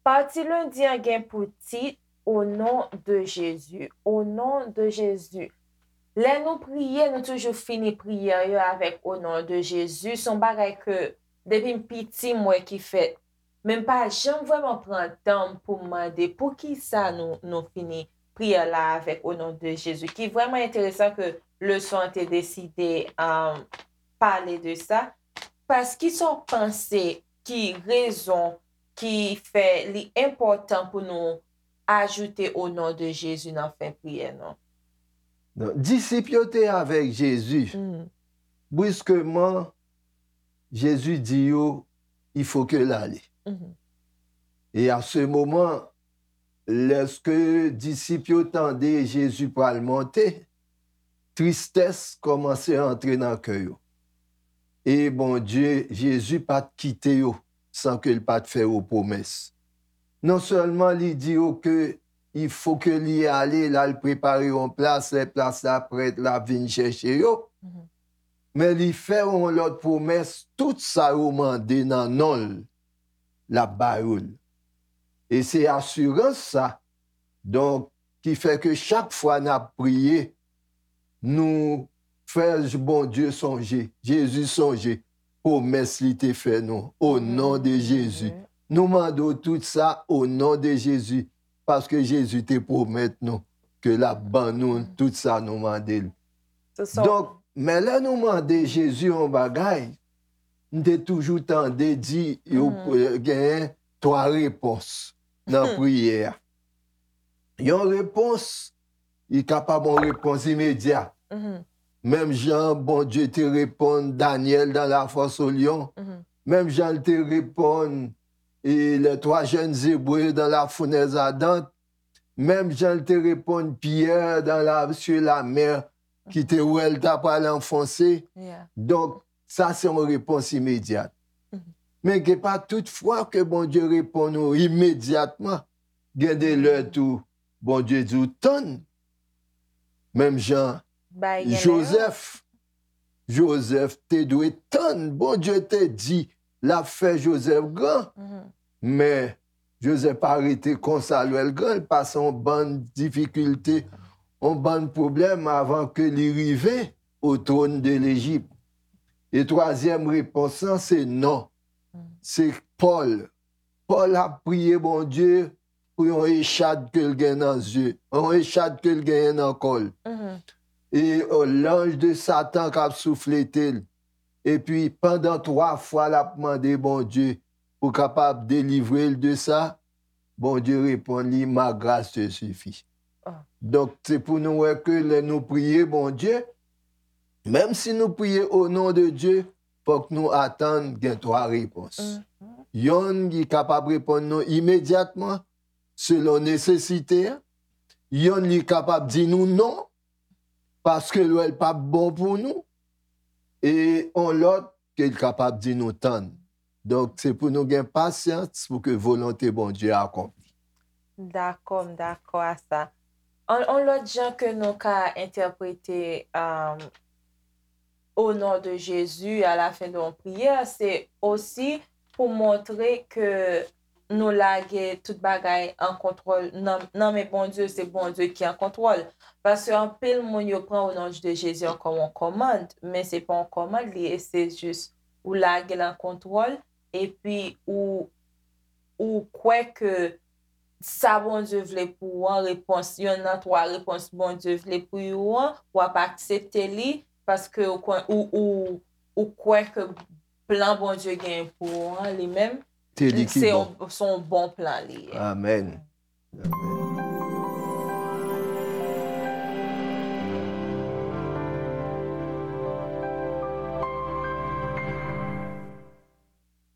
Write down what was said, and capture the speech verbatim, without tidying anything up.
Pati lendi an gen pou tit, O non de Jezi, O non de Jezi. Lè nou priye, nou toujou fini priyè yo avèk O non de Jezi. Se yon bagay ke depi m piti m wè ki fèt. Men m pa janm vrèman pran tan m pou m mande poukisa nou, nou fini priyè la avèk O non de Jezi, ki vrèman enteresan ke leson an te deside, um, pale de sa. Paske sa w panse ki rezon ki fè li enpòtan pou nou ajoute O non de Jezi nan fen priyè nou? Non, disip yo te avèk Jezi. Mhm, Brusquement, Jezi di yo, il faut que l ale. mhm, Et à ce moment, lèske disip yo tande Jezi pral monte, tristès kòmanse antre nan kè yo. E Bondye, Jezi pa t kite yo san ke l pa t fè yo pwomès. Non sèlman li di yo ke il faut que li ale, l al prepare yon plas, lè plas la prèt, l ap vin chèche yo. mhm. Men li fè yon lòt pwomès, tout sa yo mande nan non l, l ap ba yo l. E se asirans sa, donk, ki fè ke chak fwa n ap priye, nou fè Bondye sonje, Jezi sonje, pwomès li te fè nou, o non de Jezi. Nou mande w tout sa, o non de Jezi, paske Jezi te pwomèt nou ke l ap ban nou tout sa nou mande l. So, so, Donk, men lè nou mande Jezi yon bagay, m te toujou tande di yo, eh, genyen twa repons nan priyè a. Yon repons, li kapab yon repons imedyat. mhm, Menm jan Bondye te reponn Danyèl dans la fosse au lion, mhm, menm jan l te reponn e les trois jeunes Hébreux dans la fournaise ardente, menm jan l te reponn Pyè dans la, sur la mer, ki te wè l ta pral anfonse. yeah. Donk, sa se yon repons imedyat. Mhm. Men gen pa tout fwa ke Bondye reponn ou imedyatman. Gen de lè tou, Bondye di w tann. Menm jan Bay gen lè yo. Jozèf, Jozèf te dwe tann. Bondye te di l ap fè Jozèf gran. Mhm. Men Jozèf pa rete konsa lè l gran, l pase yon bann difikilte, yon bann pwoblèm avan ke li rive o twòn de Lejip. E twazyèm repons lan, se non. Se Pòl. Pòl ap priye Bondye pou yon echad ke l gen nan zye, yon echad ke l genyen nan kò l. Mhm. E, o, lanj de Satan k ap souflete l. Epi, pandan twa fwa, l ap mande Bondye pou kapab delivre l de sa. Bondye reponn li, ma grâce te suffit. Ah. Donk, se pou nou wè ke lè nou priye Bondye, menm si nou priye o non de Dye, fòk nou atann gen twa repons. Mhm. Yonn, li kapab reponn nou imedyatman, selon nesesite a. Yonn, li kapab di nou non, paske l wè l p ap bon pou nou. E on lòt, ke l kapab di nou tann. Donk, se pou nou gen pasyans pou ke volonte Bondye akonpli. Dakò, m dakò a sa. On, on lòt jan ke nou ka entèprete, um, o non de Jezi a la fen de yon priyè, se osi pou montre ke nou lage tout bagay an kontwòl nan, nan men Bondye, se Bondye ki an kontwòl. Paske anpil moun yo pran o non de Jezi an kòm yon kòmand, men se pa yon kòmand li ye, se jis ou lage l an kontwòl, epi ou, ou kwè ke sa Bondye vle pou ou an, repons, yonn nan twa repons Bondye vle pou ou an, w ap aksepte li, paske ou, kwè- ou, ou, ou kwè ke plan Bondye genyen pou ou an, li menm, Se li ki se bon. yon, se yon bon plan li ye. Amèn.